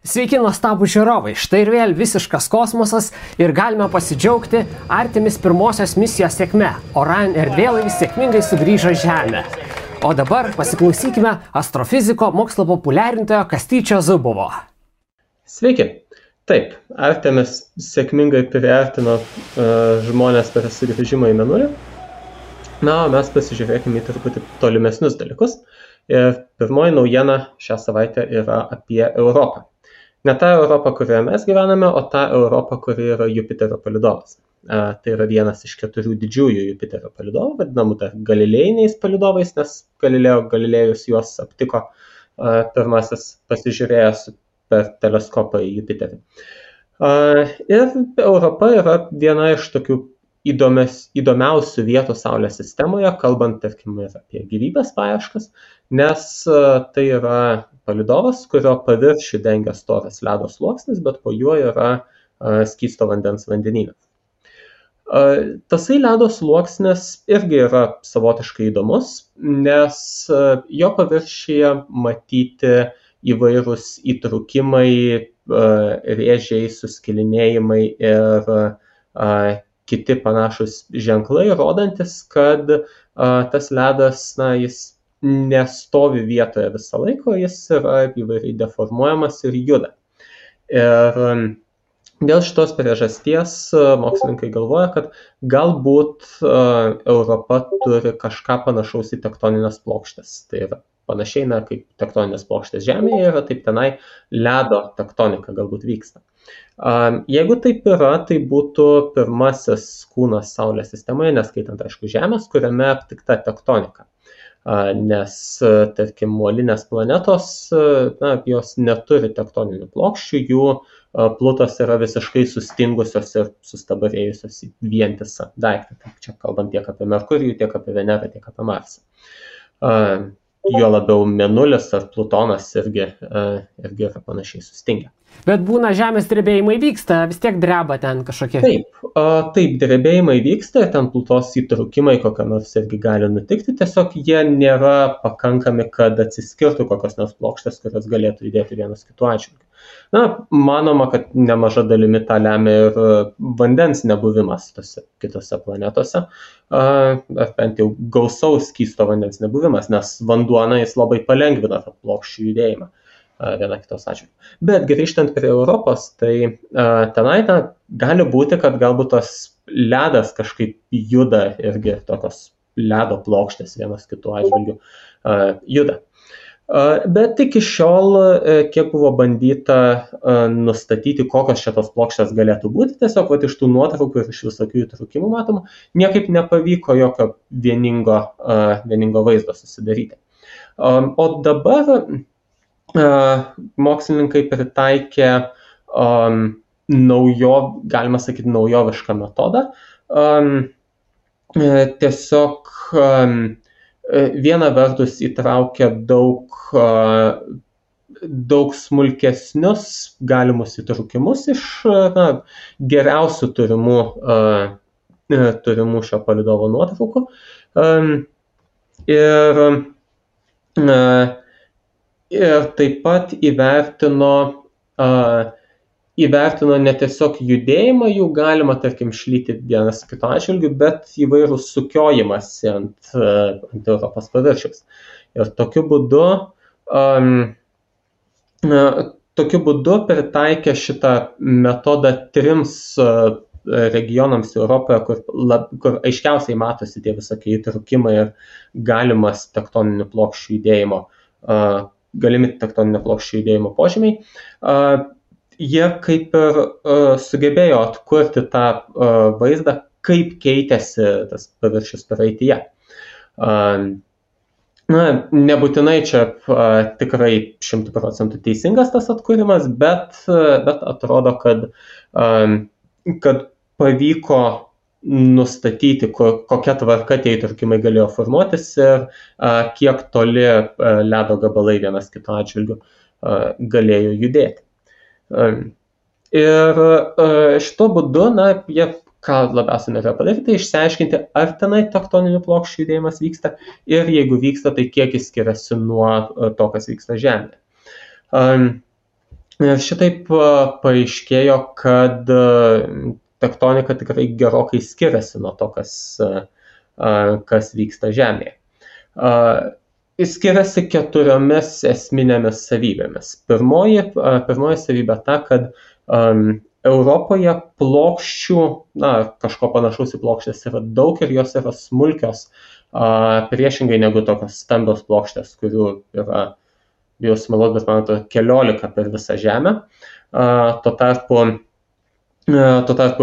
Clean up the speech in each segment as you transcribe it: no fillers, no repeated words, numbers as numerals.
Sveiki nuostabų žiūrovai, štai ir vėl visiškas kosmosas ir galime pasidžiaugti Artemis pirmosios misijos sėkme. Orion erdvėlaivis sėkmingai sugrįžo į Žemę. O dabar pasiklausykime astrofiziko mokslo populiarintojo Kastyčio Zubovo. Sveiki. Taip, Artemis sėkmingai priartino žmonės per sugrįžimą į Mėnulį. Na, o mes pasižiūrėkime į truputį tolimesnius dalykus. Ir pirmoji naujiena šią savaitę yra apie Europą. Ne tą Europą, kurioje mes gyvename, o tą Europą, kuri yra Jupiterio palydovas. Tai yra vienas iš 4 didžiųjų Jupiterio palydovų, vadinamų dar galilėjiniais palydovais, nes Galilėjus juos aptiko pirmasis pasižiūrėjęs per teleskopą į Jupiterį. Ir Europa yra viena iš tokių įdomiausių vietų Saulės sistemoje, kalbant, tarkim, ir apie gyvybės paieškas, nes tai yra palydovas, kurio paviršių dengia storas ledo sluoksnis, bet po juo yra skysto vandens vandenynas. Tasai ledo sluoksnis irgi yra savotiškai įdomus, nes jo paviršiuje matyti įvairūs įtrūkimai, rėžiai, suskilinėjimai ir kiti panašus ženklai, rodantis, kad tas ledas, jis nestovi vietoje visą laiką, jis yra įvairiai deformuojamas ir juda. Ir dėl šitos priežasties mokslininkai galvoja, kad galbūt Europa turi kažką panašaus į tektoninės plokštės. Tai yra panašiai, kaip tektoninės plokštės Žemėje yra, taip tenai ledo tektonika galbūt vyksta. Jeigu taip yra, tai būtų pirmasis kūnas Saulės sistemoje, neskaitant, aišku, Žemės, kuriame aptikta tektonika. Nes, tarkim, molinės planetos, jos neturi tektoninių plokščių, jų plutos yra visiškai sustingusios ir sustabarėjusios į vientisą daiktą. Tai čia kalbant tiek apie Merkurijų, tiek apie Venerą, tiek apie Marsą. Jo labiau Mėnulis ar Plutonas irgi yra panašiai sustingę. Bet būna žemės drebėjimai vyksta, vis tiek dreba ten kažkokie. Taip, drebėjimai vyksta, ten plutos įtrūkimai kokia nors irgi gali nutikti, tiesiog jie nėra pakankami, kad atsiskirtų kokios nors plokštės, kurios galėtų judėti vienas kitų atžvilgiu. Manoma, kad nemaža dalimi tą lemia ir vandens nebuvimas tose kitose planetose, ar bent jau gausaus skysto vandens nebuvimas, nes vanduo jis labai palengvina tą plokščių judėjimą viena kitos atžvilgiu. Bet grįžtant prie Europos, tai tenai gali būti, kad galbūt tas ledas kažkaip juda irgi tokios ledo plokštės vienas kitų atžvilgiu juda. Bet iki šiol, kiek buvo bandyta nustatyti, kokios šitos plokštės galėtų būti, tiesiog iš tų nuotraukų ir iš visokių įtrūkimų matoma, niekaip nepavyko jokio vieningo vaizdo susidaryti. O dabar mokslininkai pritaikė galima sakyti, naujovišką metodą. Tiesiog viena vertus įtraukia daug smulkesnius galimus įtrūkimus iš geriausių turimų šio palydovo nuotraukų. Ir taip pat įvertino ne tiesiog judėjimą, jų galima, tarkim, šlyti vienas kito atžvilgiu, bet įvairų sukiojimąsi ant Europos paviršiaus. Ir tokiu būdu pritaikė šitą metodą 3 regionams Europoje, kur aiškiausiai matosi tie visokie įtrūkimai ir galimas tektoninių plokščių judėjimo galimi tektoninio plokščių judėjimo požymiai, jie kaip ir sugebėjo atkurti tą vaizdą, kaip keitėsi tas paviršius praeityje. Nebūtinai čia tikrai 100% teisingas tas atkūrimas, bet atrodo, kad pavyko nustatyti, kokia tvarka tie įtrūkimai galėjo formuotis ir kiek toli ledo gabalai vienas kito atžvilgiu galėjo judėti. Ir šito būdu, jie ką labiausiai norėjo padaryti, tai išsiaiškinti, ar tenai tektoninių plokščių judėjimas vyksta ir jeigu vyksta, tai kiek jis skiriasi nuo to, kas vyksta Žemėje. Ir šitaip paaiškėjo, kad tektonika tikrai gerokai skiriasi nuo to, kas vyksta Žemėje. Skiriasi 4 esminėmis savybėmis. Pirmoji savybė ta, kad Europoje plokščių, kažko panašaus į plokštės yra daug ir jos yra smulkios, priešingai negu tokios stambios plokštės, kurių yra, bijau sumeluoti, bet man atrodo 14 per visą Žemę. Tuo tarpu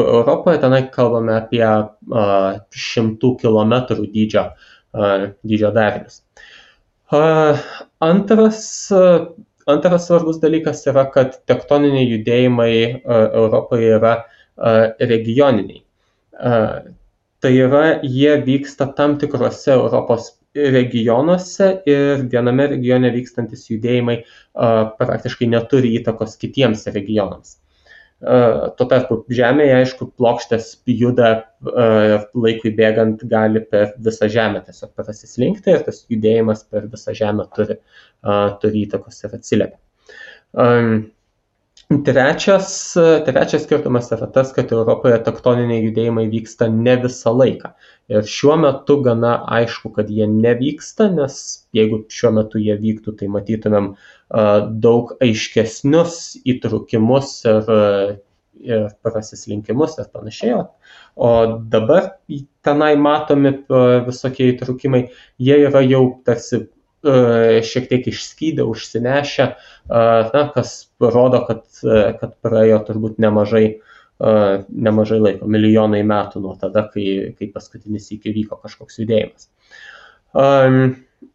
Europoje tenai kalbame apie 100 kilometrų dydžio darinius. Antras svarbus dalykas yra, kad tektoniniai judėjimai Europoje yra regioniniai. Tai yra, jie vyksta tam tikrose Europos regionuose ir viename regione vykstantis judėjimai praktiškai neturi įtakos kitiems regionams. Tuo tarpu Žemėje, aišku, plokštės juda laikui bėgant gali per visą Žemę tiesiog prasislinkti ir tas judėjimas per visą Žemę turi įtakos ir atsiliepia. Trečias skirtumas yra tas, kad Europoje tektoniniai judėjimai vyksta ne visą laiką. Ir šiuo metu gana aišku, kad jie nevyksta, nes jeigu šiuo metu jie vyktų, tai matytumėm daug aiškesnius įtrukimus ir prasislinkimus ir panašiai. O dabar tenai matomi visokie įtrukimai, jie yra jau tarsi šiek tiek išskydę, užsinešę, kas rodo, kad praėjo turbūt nemažai laiko, milijonai metų nuo tada, kai paskutinis iki vyko kažkoks judėjimas.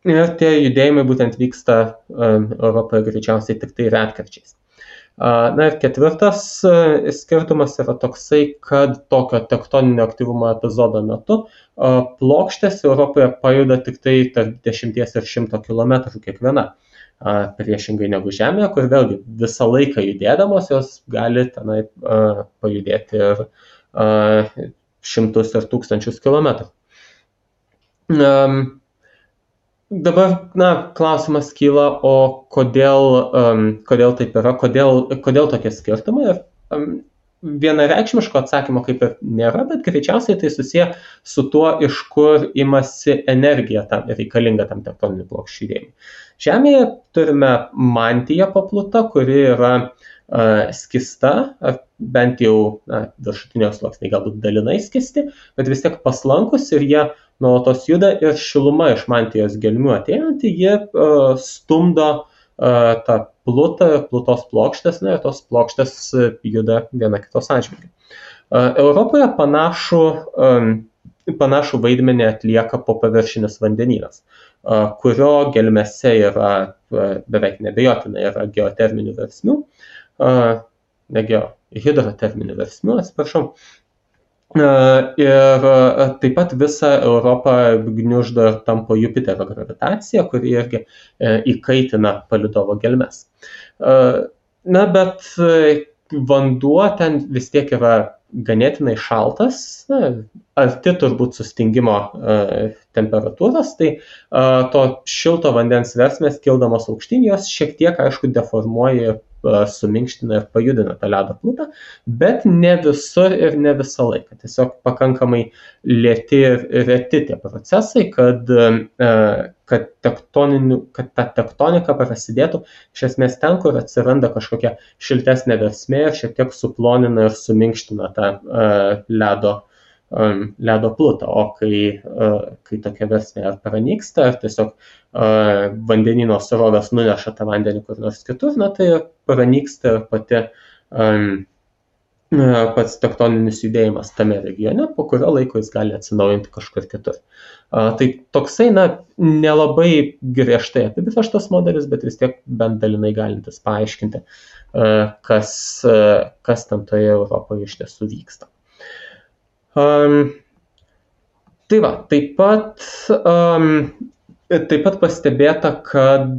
Ir tie judėjimai būtent vyksta Europoje greičiausiai tik tai retkarčiais. Ir ketvirtas skirtumas yra toksai, kad tokio tektoninio aktyvumo epizodo metu plokštės Europoje pajuda tik tai tarp 10 ir 100 km kiekviena. Priešingai negu Žemėje, kur vėlgi visą laiką judėdamos jos gali tenai pajudėti ir šimtus ir tūkstančius kilometrų. Dabar, klausimas kyla, o kodėl taip yra, kodėl tokie skirtumai? Vienareikšmiško atsakymo kaip ir nėra, bet greičiausiai tai susiję su tuo, iš kur imasi energija reikalinga tam tektoninių plokščių judėjimui. Žemėje turime mantiją papluta, kuri yra skista, bent jau viršutinio sluoksniai galbūt dalinai skisti, bet vis tiek paslankus ir jie nuolatos juda ir šiluma iš mantijos gelmių ateinanti, jie stumdo tą plutos plokštės, ir tos plokštės juda viena kitos atžvilgiu. Europoje panašų vaidmenį atlieka popaviršinis vandenynas, kurio gelmėse yra beveik neabejotinai yra geoterminių versmių, hidroterminių versmių, atsiprašau. Ir taip pat visą Europą gniuždo ir tampo Jupiterio gravitacija, kuri irgi įkaitina palydovo gelmes. Bet vanduo ten vis tiek yra ganėtinai šaltas, arti turbūt sustingimo temperatūros, tai to šilto vandens versmės kildamos aukštyn, jos šiek tiek, aišku, deformuoja, suminkština ir pajudina tą ledo plutą, bet ne visur ir ne visą laiką. Tiesiog pakankamai lėti ir reti tie procesai, kad ta tektonika prasidėtų iš esmės ten, kur atsiranda kažkokia šiltesnė versmė ir šiek tiek suplonina ir suminkština tą ledo plutą, o kai tokia versmė ar pranyksta, ar tiesiog vandenyno srovės nuneša tą vandenį kur nors kitur, tai pranyksta ir pats tektoninis judėjimas tame regione, po kurio laiko jis gali atsinaujinti kažkur kitur. Tai toksai, nelabai griežtai apibrėžtas modelis, bet vis tiek bent dalinai galintis paaiškinti, kas ten toje Europoje iš tiesų vyksta. Tai va, taip pat pastebėta, kad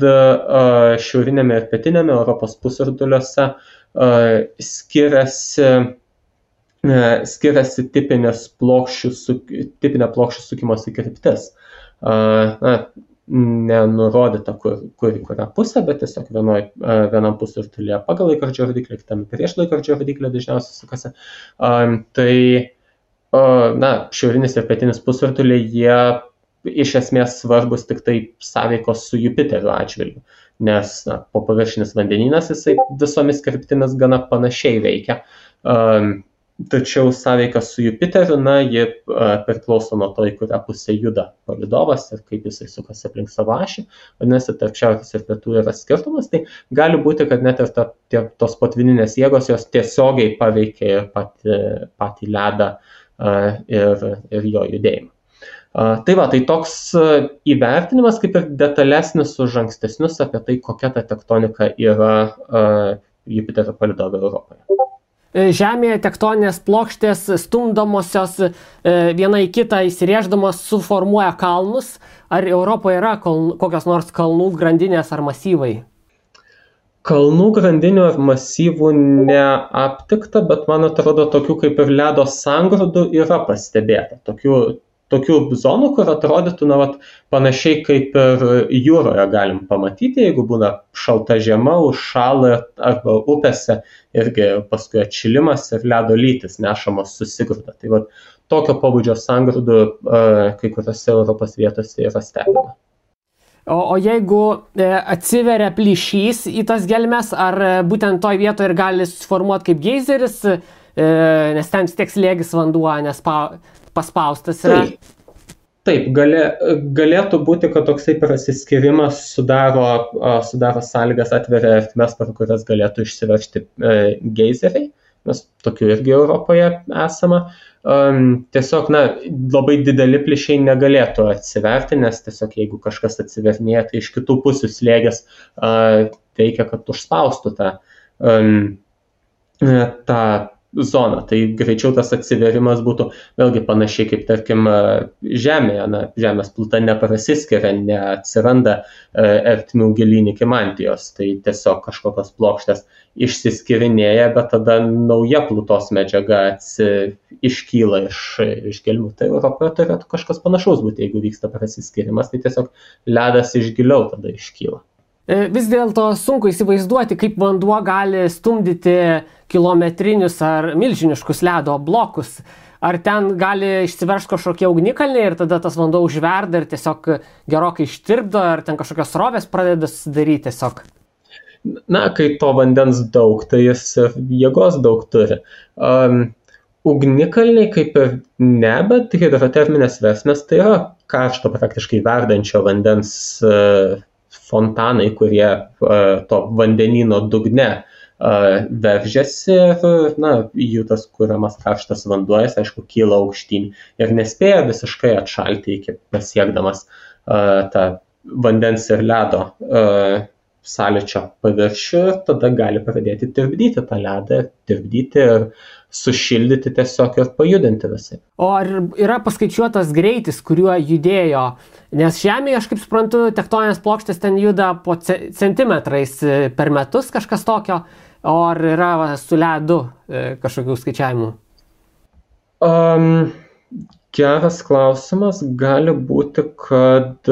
šiaurinėme ir pietinėme Europos pusrutuliuose skiriasi tipinė plokščių sukimosi kryptis. nenurodyta, kur į kurią pusę, bet tiesiog vienam pusrutulyje pagal laikrodžio rodiklį, kitame prieš laikrodžio rodiklį dažniausiai sukasi. Tai šiaurinis ir pietinis pusrutuliai, jie iš esmės svarbus tik tai sąveikos su Jupiteriu atžvilgiu, nes popaviršinis vandenynas jisai visomis kryptimis gana panašiai veikia. Tačiau sąveika su Jupiteriu, ji priklauso nuo to, į kurią pusę juda palydovas ir kaip jisai sukasi aplink savo ašį. Vadinasi, tarp šiaurės ir pietų yra skirtumas, tai gali būti, kad net ir tos potvyninės jėgos jos tiesiogiai paveikia ir patį ledą ir jo judėjimą. Tai toks įvertinimas kaip ir detalesnis už ankstesnius apie tai, kokia ta tektonika yra Jupiterio palydove Europoje. Žemėje tektoninės plokštės stumdomosios viena į kitą įsirėždamos suformuoja kalnus. Ar Europoje yra kokios nors kalnų grandinės ar masyvai? Kalnų grandinių ar masyvų neaptikta, bet man atrodo, tokių kaip ir ledo sangrūdų yra pastebėta. Tokių zonų, kur atrodytų, panašiai kaip ir jūroje galim pamatyti, jeigu būna šalta žiema, užšąla arba upėse irgi paskui atšilimas ir ledo lytis nešamos susigrūda. Tai tokio pobūdžio sangrūdų kai kuriuose Europos vietose yra stebima. O jeigu atsiveria plyšys į tas gelmes, ar būtent toj vietoje ir gali susiformuoti kaip geizeris, nes ten tiek slėgis vanduo, nes paspaustas yra? Taip, galėtų būti, kad toksai prasiskirimas sudaro sąlygas, atveria ertmes, per kurias galėtų išsiveržti geizeriai, nes tokių irgi Europoje esama. Tiesiog, labai dideli plyšiai negalėtų atsiverti, nes tiesiog jeigu kažkas atsivernėja, tai iš kitų pusių slėgis veikia, kad užspaustų tą zoną. Tai greičiau tas atsiverimas būtų vėlgi panašiai kaip, tarkim, Žemėje. Žemės pluta neprasiskiria, neatsiranda ertmių gilyn iki mantijos. Tai tiesiog kažkokios plokštės išsiskirinėja, bet tada nauja plutos medžiaga iškyla iš gelmių. Tai Europoje turėtų kažkas panašaus būti, jeigu vyksta prasiskirimas, tai tiesiog ledas iš giliau tada iškyla. Vis dėlto sunku įsivaizduoti, kaip vanduo gali stumdyti kilometrinius ar milžiniškus ledo blokus. Ar ten gali išsiveržti kažkokie ugnikalniai ir tada tas vanduo užverda ir tiesiog gerokai ištirpdo, ar ten kažkokios srovės pradeda susidaryti tiesiog? Kai to vandens daug, tai jis jėgos daug turi. Ugnikalniai kaip ir ne, bet hidroterminės versmės tai yra karšto praktiškai verdančio vandens fontanai, kurie to vandenyno dugne veržiasi ir jų tas kuriamas karštas vanduo, jis aišku kyla aukštyn ir nespėja visiškai atšalti iki pasiekdamas tą vandens ir ledo sąlyčio paviršių ir tada gali pradėti tirpdyti tą ledą, tirpdyti ir sušildyti tiesiog ir pajudinti visai. O ar yra paskaičiuotas greitis, kuriuo judėjo? Nes Žemėje, aš kaip suprantu, tektoninės plokštės ten juda po centimetrais per metus kažkas tokio, o ar yra su ledu kažkokių skaičiavimų? Geras klausimas. Gali būti, kad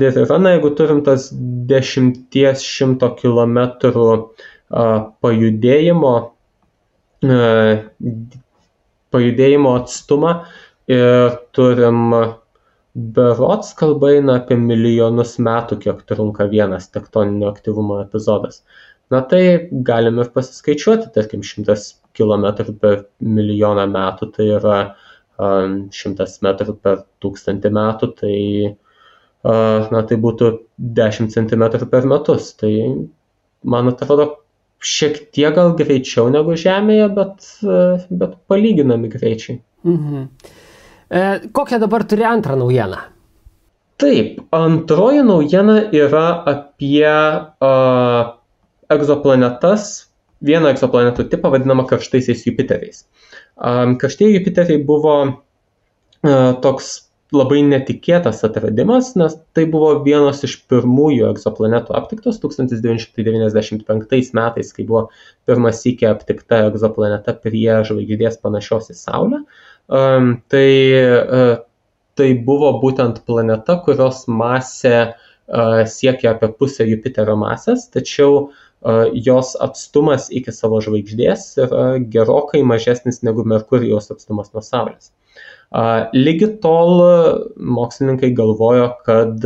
ir yra, jeigu turim tas 10–100 kilometrų pajudėjimo atstumą ir turim berods kalba eina apie milijonus metų, kiek trunka vienas tektoninio aktyvumo epizodas. Tai galim ir pasiskaičiuoti, tarkim, 100 km per milijoną metų, tai yra 100 metrų per 1000 metų, tai būtų 10 cm per metus. Tai man atrodo, šiek tiek gal greičiau negu Žemėje, bet palyginami greičiai. Kokią dabar turi antrą naujieną? Taip, antroji naujiena yra apie egzoplanetas, vieną egzoplanetų tipą vadinamą karštaisiais Jupiteriais. Karštieji Jupiteriai buvo toks labai netikėtas atradimas, nes tai buvo vienas iš pirmųjų egzoplanetų aptiktos 1995 metais, kai buvo pirmas sykį aptikta egzoplaneta prie žvaigždės panašios į Saulę. tai buvo būtent planeta, kurios masė siekia apie pusę Jupiterio masės, tačiau jos atstumas iki savo žvaigždės yra gerokai mažesnis negu Merkurijaus atstumas nuo Saulės. Lygi tol mokslininkai galvojo, kad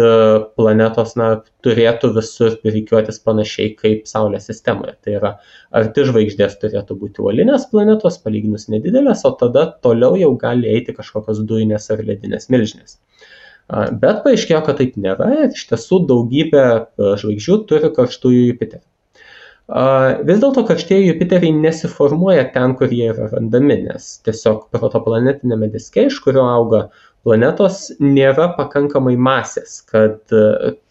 planetos turėtų visur rikiuotis panašiai kaip Saulės sistemoje. Tai yra, arti žvaigždės turėtų būti uolinės planetos, palyginus nedidelės, o tada toliau jau gali eiti kažkokios dujinės ar ledinės milžinės. Bet paaiškėjo, kad taip nėra ir iš tiesų daugybė žvaigždžių turi karštųjų Jupiterį. Vis dėlto karštieji Jupiteriai nesiformuoja ten, kur jie yra randami, nes tiesiog protoplanetinėme diske, iš kurio auga planetos, nėra pakankamai masės, kad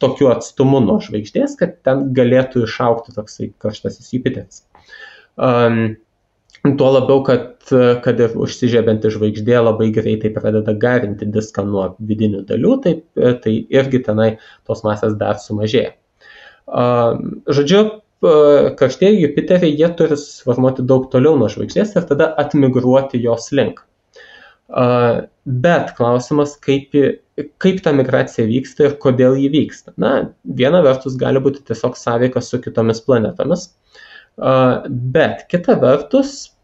tokiu atstumu nuo žvaigždės, kad ten galėtų išaugti toksai karštasis Jupiteris. Tuo labiau, kad ir užsižiebianti žvaigždė labai greitai pradeda garinti diską nuo vidinių dalių, tai irgi tenai tos masės dar sumažėja. Žodžiu, karštieji Jupiteriai, jie turi susiformuoti daug toliau nuo žvaigždės ir tada atmigruoti jos link. Bet klausimas, kaip ta migracija vyksta ir kodėl ji vyksta. Viena vertus gali būti tiesiog sąveika su kitomis planetomis, bet kita vertus,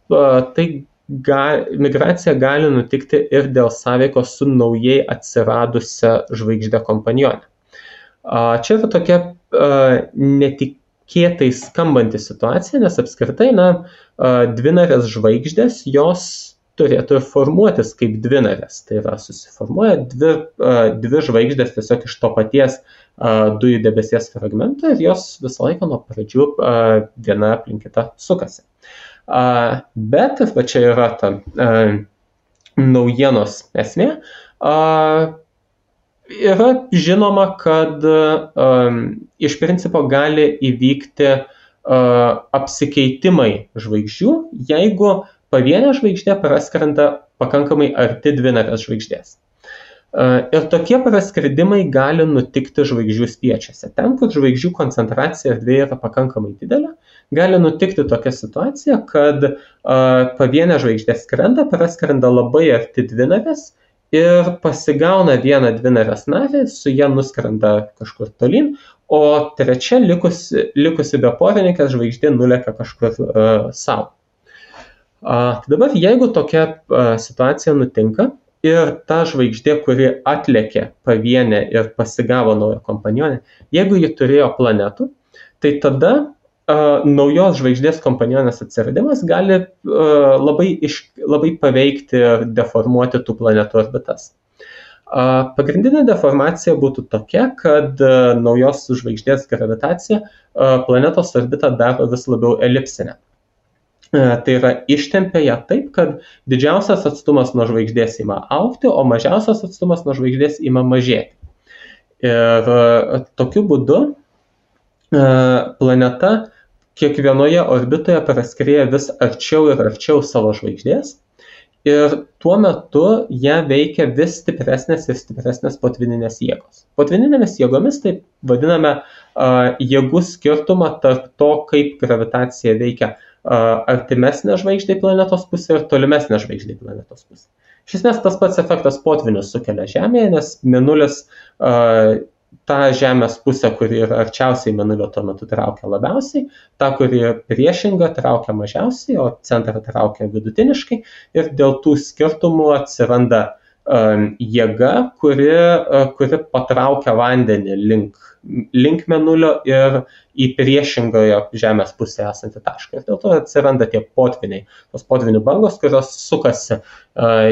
migracija gali nutikti ir dėl sąveikos su naujai atsiradusia žvaigždė kompanionė. Čia yra tokia netikėtai skambanti situacija, nes apskritai, dvinarės žvaigždės, jos turėtų ir formuotis kaip dvinarės. Tai yra, susiformuoja dvi žvaigždės tiesiog iš to paties dujų debesies fragmento ir jos visą laiką nuo pradžių viena aplink kitą sukasi. Bet, va čia yra ta naujienos esmė, yra žinoma, kad iš principo gali įvykti apsikeitimai žvaigždžių, jeigu pavienė žvaigždė praskrenda pakankamai arti dvinarės žvaigždės. Ir tokie praskridimai gali nutikti žvaigždžių spiečiuose. Ten, kur žvaigždžių koncentracija erdvėje yra pakankamai didelė, gali nutikti tokia situacija, kad pavienė žvaigždė praskrenda labai arti dvinarės ir pasigauna vieną dvinarės narį, su ją nuskrenda kažkur tolyn, o trečia likusi beporininkė žvaigždė nulekia kažkur savo. Dabar, jeigu tokia situacija nutinka ir ta žvaigždė, kuri atlėkė pavienę ir pasigavo naują kompanionę, jeigu ji turėjo planetų, tai tada naujos žvaigždės kompanionės atsiradimas gali labai paveikti ir deformuoti tų planetų orbitas. Pagrindinė deformacija būtų tokia, kad naujos žvaigždės gravitacija planetos orbitą daro vis labiau elipsinę. Tai yra, ištempia ją taip, kad didžiausias atstumas nuo žvaigždės ima augti, o mažiausias atstumas nuo žvaigždės ima mažėti. Ir tokiu būdu planeta kiekvienoje orbitoje praskrieja vis arčiau ir arčiau savo žvaigždės ir tuo metu ją veikia vis stipresnės ir stipresnės potvyninės jėgos. Potvyninėmis jėgomis taip vadiname jėgų skirtumą tarp to, kaip gravitacija veikia artimesnė žvaigždė planetos pusė ir tolimesnė žvaigždė planetos pusė. Iš esmės tas pats efektas potvinius sukelia Žemėje, nes Mėnulis tą Žemės pusę, kuri yra arčiausiai Mėnulio, tuo metu traukia labiausiai, tą, kuri priešinga, traukia mažiausiai, o centrą traukia vidutiniškai ir dėl tų skirtumų atsiranda jėga, kuri patraukia vandenį link Mėnulio ir į priešingoje Žemės pusėje esantį tašką. Ir dėl to atsiranda tie potviniai, tos potvinių bangos, kurios sukasi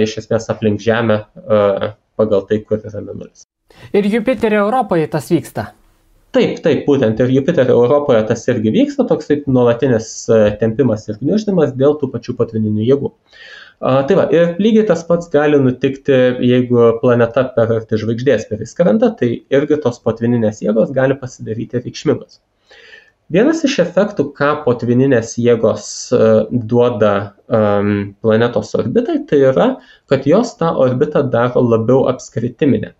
iš esmės aplink Žemę pagal tai, kur yra Mėnulis. Ir Jupiterio Europoje tas vyksta? Taip, būtent ir Jupiterio Europoje tas irgi vyksta, toks taip nuolatinis tempimas ir gniuždymas dėl tų pačių potvininių jėgų. Tai va, ir lygiai tas pats gali nutikti, jeigu planeta per arti žvaigždės priskrenda, tai irgi tos potvininės jėgos gali pasidaryti reikšmingos. Vienas iš efektų, ką potvininės jėgos duoda planetos orbitai, tai yra, kad jos tą orbitą daro labiau apskritiminę.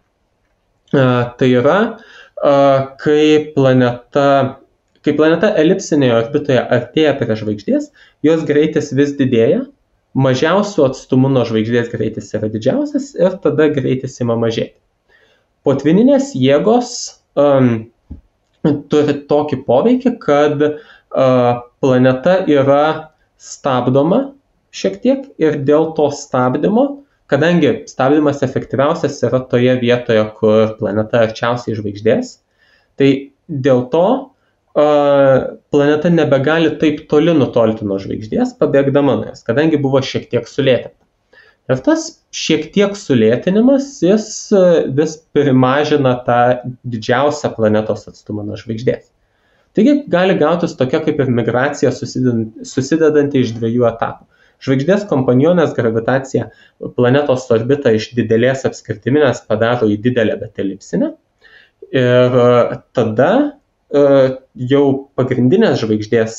Tai yra, kai planeta elipsinėje orbitoje artėja prie žvaigždės, jos greitis vis didėja, mažiausiu atstumu nuo žvaigždės greitis yra didžiausias ir tada greitis ima mažėti. Potvyninės jėgos turi tokį poveikį, kad planeta yra stabdoma šiek tiek ir dėl to stabdymo, kadangi stabdymas efektyviausias yra toje vietoje, kur planeta arčiausiai žvaigždės, tai dėl to planeta nebegali taip toli nutolti nuo žvaigždės, pabėgdama nuo jos, kadangi buvo šiek tiek sulėtinta. Ir tas šiek tiek sulėtinimas, jis vis primažina tą didžiausią planetos atstumą nuo žvaigždės. Taigi gali gautis tokia kaip ir migracija susidedanti iš dviejų etapų. Žvaigždės kompanionės gravitacija planetos orbitą iš didelės apskritiminės padaro į didelę bet elipsinę. Ir tada jau pagrindinės žvaigždės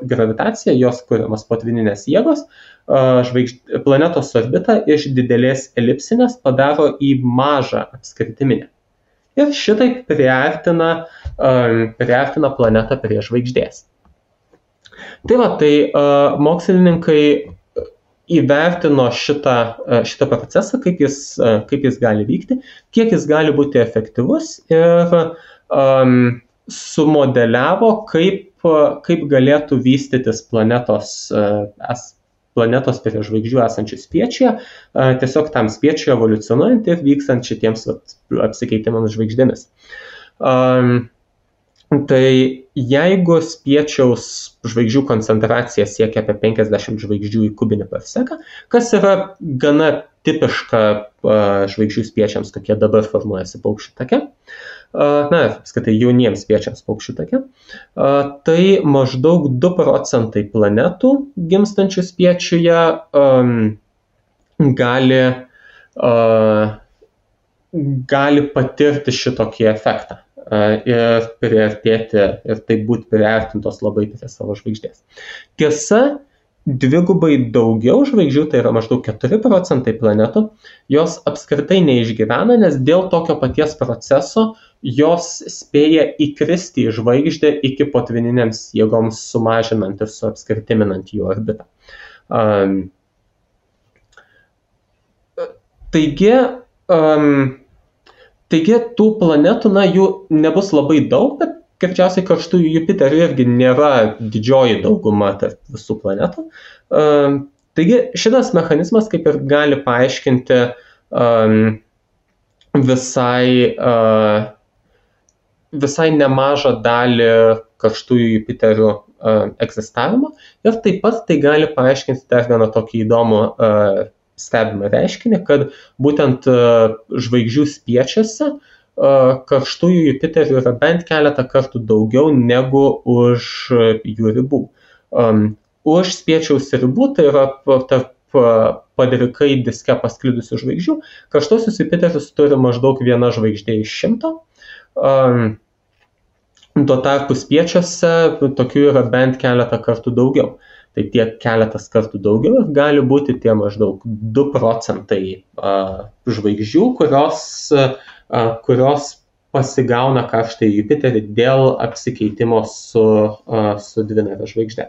gravitacija, jos kuriamas potvyninės jėgos, planetos orbitą iš didelės elipsinės padaro į mažą apskritiminę. Ir šitaip priartina planetą prie žvaigždės. Tai va, tai mokslininkai įvertino šitą procesą, kaip jis gali vykti, kiek jis gali būti efektyvus ir sumodeliavo, kaip galėtų vystytis planetos prie žvaigždžių esančių spiečiuje, tiesiog tam spiečiui evoliucionuojant ir vykstant šitiems apsikeitimams žvaigždėmis. Tai jeigu spiečiaus žvaigždžių koncentracija siekia apie 50 žvaigždžių į kubinį per seką, kas yra gana tipiška žvaigždžių spiečiams, kokie dabar formuojasi paukščių take, apskritai jauniems spiečiams paukščių take, tai maždaug 2% planetų gimstančių spiečiuje gali patirti šitokį efektą ir priartėti ir taip būti priartintos labai prie savo žvaigždės. Tiesa, dvigubai daugiau žvaigždžių, tai yra maždaug 4% planetų, jos apskritai neišgyvena, nes dėl tokio paties proceso jos spėja įkristi į žvaigždę iki potvyninėms jėgoms sumažinant ir suapskritiminant jų orbitą. Taigi tų planetų, jų nebus labai daug, bet greičiausiai karštųjų Jupiterių irgi nėra didžioji dauguma tarp visų planetų. Taigi šitas mechanizmas kaip ir gali paaiškinti visai nemažą dalį karštųjų Jupiterių egzistavimo ir taip pat tai gali paaiškinti dar vieną tokį įdomų stebimą reiškinį, kad būtent žvaigždžių spiečiuose karštųjų Jupiterių yra bent keletą kartų daugiau negu už jų ribų. Už spiečiaus ribų, tai yra tarp padrikai diske pasklidusių žvaigždžių, karštuosius Jupiterius turi maždaug viena žvaigždė iš 100. Tuo tarpu spiečiuose tokių yra bent keletą kartų daugiau. Tai tiek keletas kartų daugiau ir gali būti tie maždaug 2% žvaigždžių, kurios pasigauna karštąjį Jupiterį dėl apsikeitimo su dvinare žvaigžde.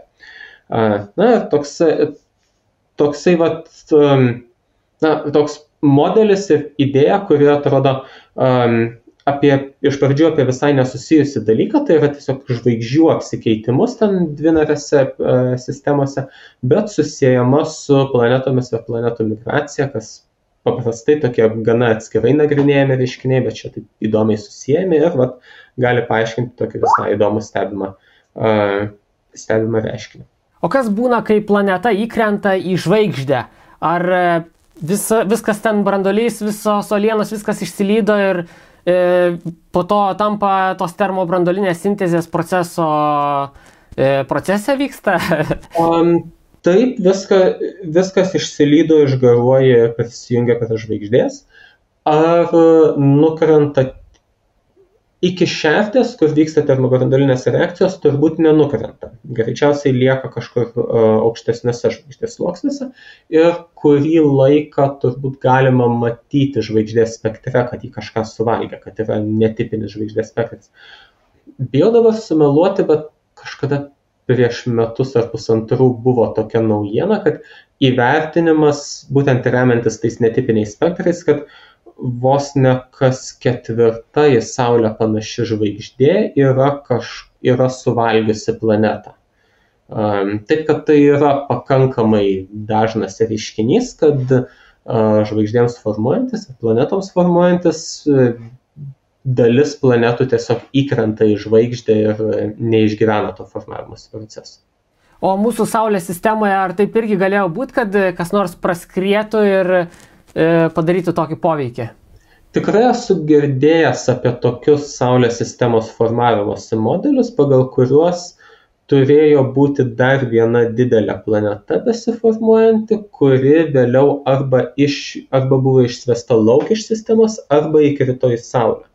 Toks modelis ir idėja, kuri atrodo iš pradžių apie visai nesusijusi dalyką, tai yra tiesiog žvaigždžių apsikeitimus ten dvinarėse sistemose, bet susiejama su planetomis ir planetų migracija, kas paprastai tokie gana atskirai nagrinėjami reiškiniai, bet čia taip įdomiai susijami ir gali paaiškinti tokį visai įdomų stebimą reiškinį. O kas būna, kai planeta įkrenta į žvaigždę? Ar viskas ten branduolys, visos uolienos, viskas išsilydo ir po to tampa tos termobranduolinės sintezės procese vyksta? Taip, viskas išsilydo, išgaruoja ir prisijungia prie žvaigždės. Ar nukrenta iki šertės, kur vyksta termobranduolinės reakcijos, turbūt nenukrenta. Greičiausiai lieka kažkur aukštesnėse žvaigždės sluoksniuose ir kurį laiką turbūt galima matyti žvaigždės spektre, kad jį kažką suvalgė, kad yra netipinis žvaigždės spektras. Bijau dabar sumeluoti, bet kažkada prieš metus ar pusantrų buvo tokia naujiena, kad įvertinimas, būtent remiantis tais netipiniais spektrais, kad vos ne kas ketvirta į Saulę panaši žvaigždė yra suvalgiusi planetą. Taip, kad tai yra pakankamai dažnas reiškinys, kad žvaigždėms formuojantis ir planetoms formuojantis dalis planetų tiesiog įkrenta į žvaigždę ir neišgyvena to formavimosi proceso. O mūsų Saulės sistemoje ar taip irgi galėjo būti, kad kas nors praskrietų ir padarytų tokį poveikį? Tikrai esu girdėjęs apie tokius Saulės sistemos formavimosi modelius, pagal kuriuos turėjo būti dar viena didelė planeta besiformuojanti, kuri vėliau arba buvo išsvesta lauk iš sistemos, arba įkrito į Saulę.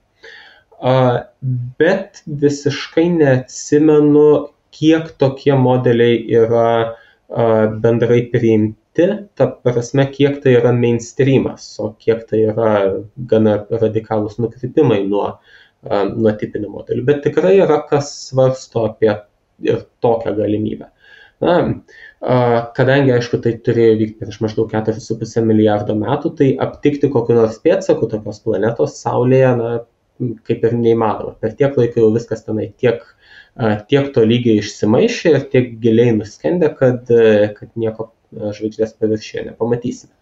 Bet visiškai neatsimenu, kiek tokie modeliai yra bendrai priimti, ta prasme, kiek tai yra mainstreamas, o kiek tai yra gana radikalūs nukrypimai nuo tipinių modelių. Bet tikrai yra kas svarsto apie ir tokią galimybę. Kadangi, aišku, tai turėjo vykti prieš maždaug 4,5 milijardo metų, tai aptikti kokių nors pėdsakų tokios planetos Saulėje, kaip ir neįmanoma. Per tiek laiko jau viskas tenai tiek to lygiai išsimaišė ir tiek giliai nuskendė, kad nieko žvaigždės paviršiuje nepamatysime.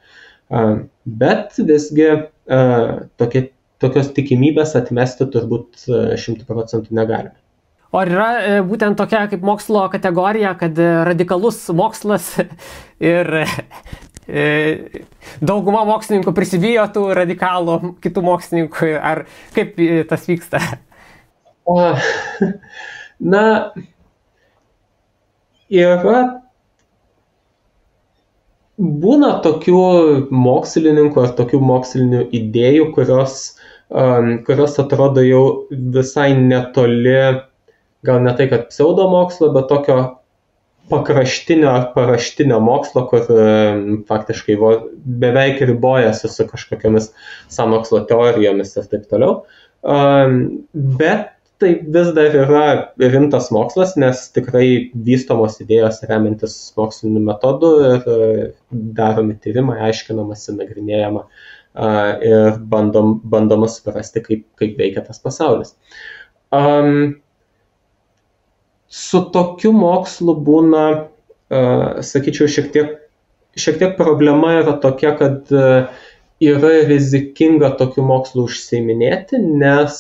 Bet visgi tokios tikimybės atmesti turbūt 100% negalime. O yra būtent tokia kaip mokslo kategorija, kad radikalus mokslas ir dauguma mokslininkų prisibijo tų radikalų kitų mokslininkų, ar kaip tas vyksta? Būna tokių mokslininkų ar tokių mokslinių idėjų, kurios atrodo jau visai netoli, gal ne tai, kad pseudomokslo, bet tokio pakraštinio ar paraštinio mokslo, kur faktiškai beveik ribojasi su kažkokiamis sąmokslo teorijomis ir taip toliau. Bet tai vis dar yra rimtas mokslas, nes tikrai vystomos idėjos remiantis moksliniu metodu ir daromi tyrimai, aiškinamasi, nagrinėjama ir bandoma suprasti, kaip veikia tas pasaulis. Su tokiu mokslu būna, sakyčiau, šiek tiek problema yra tokia, kad yra rizikinga tokiu mokslu užsiiminėti, nes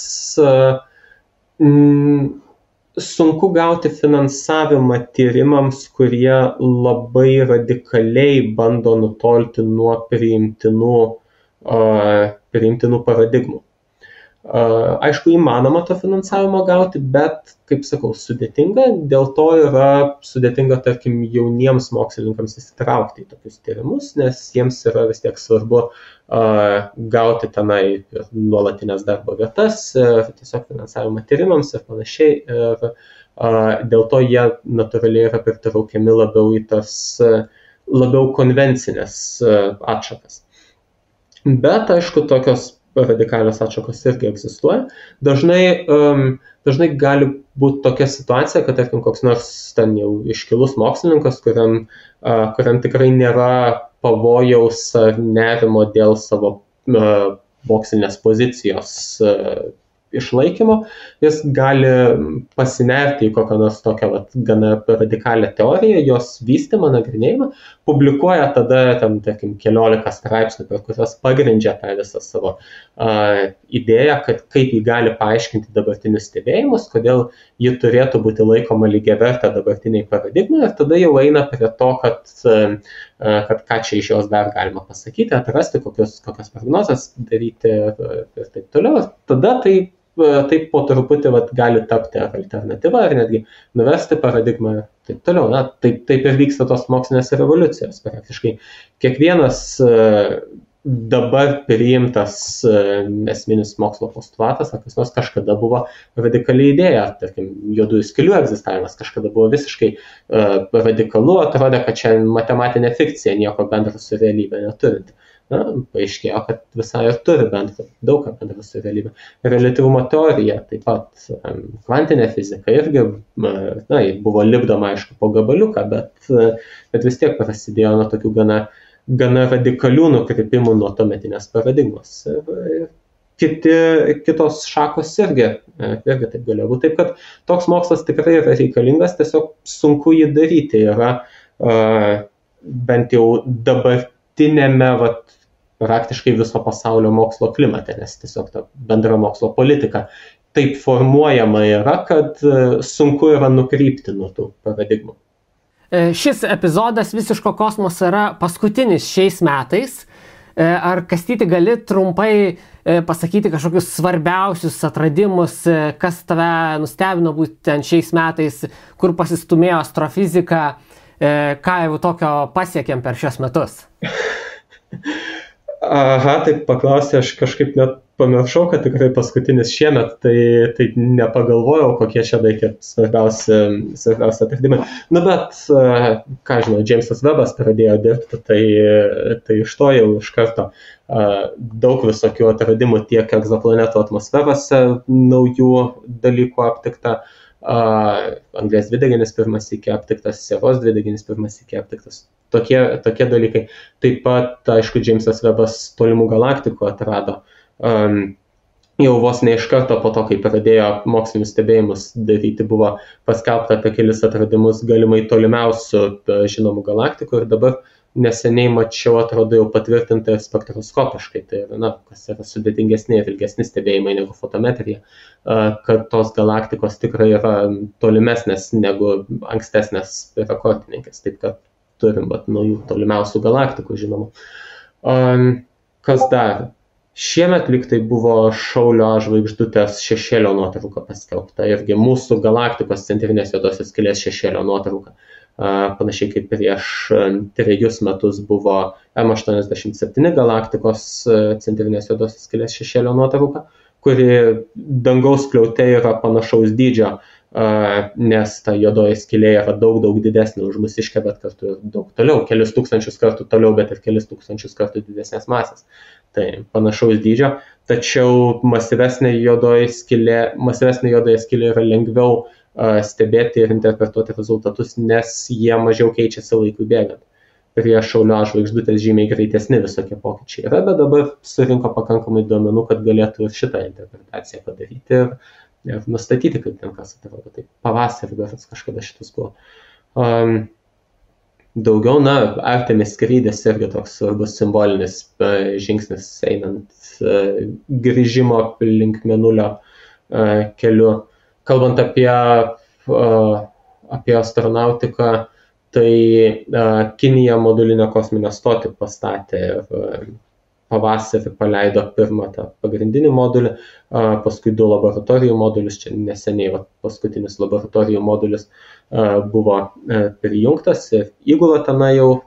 sunku gauti finansavimą tyrimams, kurie labai radikaliai bando nutolti nuo priimtinų paradigmų. Aišku, įmanoma to finansavimo gauti, bet, kaip sakau, sudėtinga. Dėl to yra sudėtinga, tarkim, jauniems mokslininkams įsitraukti į tokius tyrimus, nes jiems yra vis tiek svarbu gauti tenai nuolatinės darbo vietas, tiesiog finansavimą tyrimams ir panašiai. Ir dėl to jie natūraliai yra pritraukiami labiau į tas labiau konvencinės atšakas. Bet, aišku, tokios radikalios atšakos irgi egzistuoja. Dažnai gali būti tokia situacija, kad, tarkim, koks nors ten jau iškilus mokslininkas, kuriam tikrai nėra pavojaus ar nerimo dėl savo mokslinės pozicijos išlaikymo, jis gali pasinerti į kokią nors tokią gana radikalią teoriją, jos vystymą, nagrinėjimą, publikuoja tada, tarkim, 11 straipsnių, per kurios pagrindžia tą visą savo idėją, kad kaip jį gali paaiškinti dabartinius stebėjimus, kodėl ji turėtų būti laikoma lygiavertė dabartiniai paradigmai, ir tada jau eina prie to, kad ką čia iš jos dar galima pasakyti, atrasti, kokios prognozes daryti ir taip toliau. Ir tada taip po truputį gali tapti alternatyva ir netgi nuversti paradigmą ir taip toliau. Taip ir vyksta tos mokslinės revoliucijos. Praktiškai kiekvienas dabar priimtas esminis mokslo postulatas, ar kas nors kažkada buvo radikali idėja, tarkim, juodųjų skylių egzistavimas kažkada buvo visiškai radikalu, atrodė, kad čia matematinė fikcija, nieko bendro su realybė neturinti. paaiškėjo, kad visai ir turi bendrą, daug ką bendrą su realybė. Reliatyvumo teorija, taip pat kvantinė fizika irgi buvo lipdoma, aišku, po gabaliuką, bet vis tiek prasidėjo nuo tokių gana radikalių nukrypimų nuo tuometinės paradigmos. Kitos šakos irgi taip galėjo būti. Taip, kad toks mokslas tikrai yra reikalingas, tiesiog sunku jį daryti. Yra bent jau dabartinėme praktiškai viso pasaulio mokslo klimate, nes tiesiog ta bendra mokslo politika taip formuojama yra, kad sunku yra nukrypti nuo tų paradigmų. Šis epizodas Visiško kosmoso yra paskutinis šiais metais. Ar, Kastyti, gali trumpai pasakyti kažkokius svarbiausius atradimus, kas tave nustebino būtent šiais metais, kur pasistumėjo astrofizika, ką jau tokio pasiekėm per šios metus? Aha, taip paklausė, aš kažkaip net pamiršau, kad tikrai paskutinis šiemet, tai nepagalvojau, kokie čia reikia svarbiausi atradimai. Bet, ką žinau, Jamesas Webbas pradėjo dirbti, tai iš to jau iš karto daug visokių atradimų tiek egzoplanetų atmosferose, naujų dalykų aptikta, anglies dvideginis pirmas iki aptiktas, sieros dvideginis pirmas iki aptiktas. Tokie dalykai. Taip pat, aišku, Jamesas Webbas tolimų galaktikų atrado. Jau vos ne iš karto po to, kai pradėjo mokslinius stebėjimus daryti, buvo paskelbta apie kelis atradimus galimai tolimiausių žinomų galaktikų ir dabar neseniai mačiau, atrodo, jau patvirtinta spektroskopiškai, tai kas yra sudėtingesni ir ilgesni stebėjimai negu fotometrija, kad tos galaktikos tikrai yra tolimesnės negu ankstesnės rekordininkės, taip kad turim naujų tolimiausių galaktikų, žinoma. Kas dar? Šiemet lyg tai buvo Šaulio žvaigždutės šešėlio nuotrauka paskelbta, irgi mūsų galaktikos centrinės juodosios skylės šešėlio nuotrauka. Panašiai kaip prieš 3 metus buvo M87 galaktikos centrinės juodosios skylės šešėlio nuotrauka, kuri dangaus skliaute yra panašaus dydžio, nes ta juodoji skylė yra daug didesnė už mūsiškę, bet kartu daug toliau, kelis tūkstančius kartų toliau, bet ir kelis tūkstančius kartų didesnės masės. Tai panašaus dydžio, tačiau masyvesnė juodoji skylė yra lengviau stebėti ir interpretuoti rezultatus, nes jie mažiau keičiasi laikui bėgant. Prie Šaulio žvaigždutės žymiai greitesni visokie pokyčiai yra, bet dabar surinko pakankamai duomenų, kad galėtų ir šitą interpretaciją padaryti ir nustatyti, kaip ten kas atrodo. Tai pavasarį berods kažkada šitas buvo. Daugiau, Artemis skrydis irgi toks svarbus simbolinis žingsnis einant grįžimo link Mėnulio keliu. Kalbant apie astronautiką, tai Kinija modulinę kosminę stotį pastatė ir pavasarį paleido pirmą tą pagrindinį modulį, paskui 2 laboratorijų modulius, čia neseniai paskutinis laboratorijų modulis buvo prijungtas ir įgula tenai jau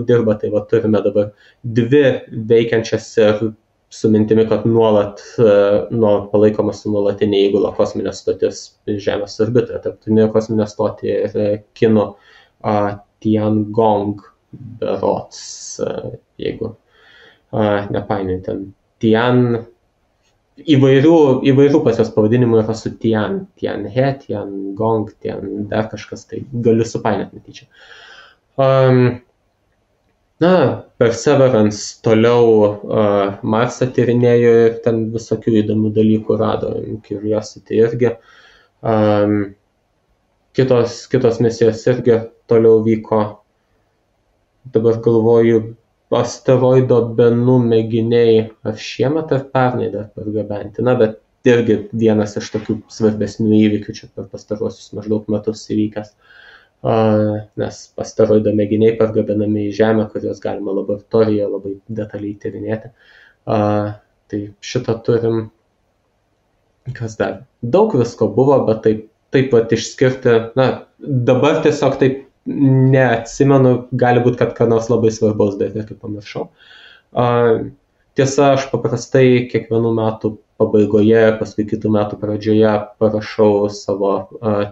dirba, tai turime dabar 2 veikiančias ir su mintimi, kad nuolat palaikoma su nuolatinė įgula kosminė stotis Žemės orbitoje, tarptautinė kosminė stotį ir Kinų Tiangong berods, jeigu nepainiojant ten. Tian, įvairių pas jos pavadinimų yra su Tian, Tianhe, Tiangong, Tian dar kažkas, tai galiu supainioti netyčia. Perseverance toliau Marsą tyrinėjo ir ten visokių įdomių dalykų rado, Curiosity irgi. Kitos misijos irgi toliau vyko. Dabar galvoju, asteroido Bennu mėginiai ar šiemet ar pernai dar pargabenti. Bet irgi vienas iš tokių svarbesnių įvykių čia per pastaruosius maždaug metus įvykęs. Nes asteroido mėginiai pargabenami į Žemę, kuriuos galima laboratorijoje labai detaliai tyrinėti. Tai šitą turim. Kas dar? Daug visko buvo, bet taip pat išskirti. Dabar tiesiog taip neatsimenu, gali būti, kad ką nors labai svarbaus dar irgi pamiršau. Tiesa, aš paprastai kiekvienų metų pabaigoje, paskui kitų metų pradžioje parašau savo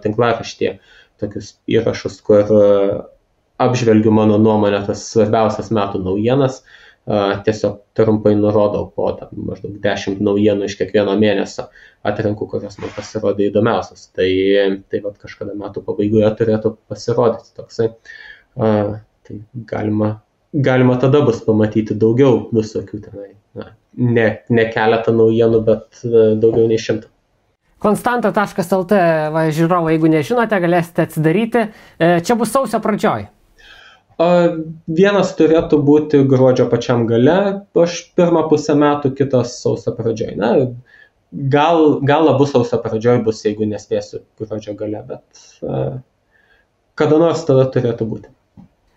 tinklaraštyje tokius įrašus, kur apžvelgiu mano nuomonę tas svarbiausias metų naujienas. tiesiog trumpai nurodau po maždaug 10 naujienų iš kiekvieno mėnesio, atrenku, kurios man pasirodė įdomiausios. Tai vat kažkada metų pabaigoje turėtų pasirodyti toksai. Tai galima tada bus pamatyti daugiau visokių tenai. Ne keletą naujienų, bet daugiau nei 100. Konstanta.lt, žiūrovai, jeigu nežinote, galėsite atsidaryti. Čia bus sausio pradžioj. Vienas turėtų būti gruodžio pačiam gale, aš pirmą pusę metų, kitas sausio pradžioj. Gal abu sausio pradžioj bus, jeigu nespėsiu gruodžio gale, bet kada nors tada turėtų būti.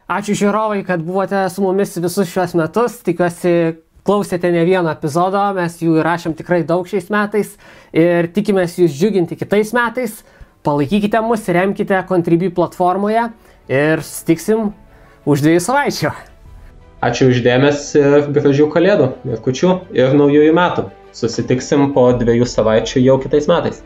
Ačiū žiūrovai, kad buvote su mumis visus šios metus. Tikiuosi, klausėte ne vieno epizodo, mes jų įrašėm tikrai daug šiais metais ir tikimės jūs džiuginti kitais metais. Palaikykite mus, remkite Contribui platformoje ir susitiksim už 2 savaičių. Ačiū už dėmesį ir gražių kalėdų ir kūčių ir naujųjų metų. Susitiksim po 2 savaičių jau kitais metais.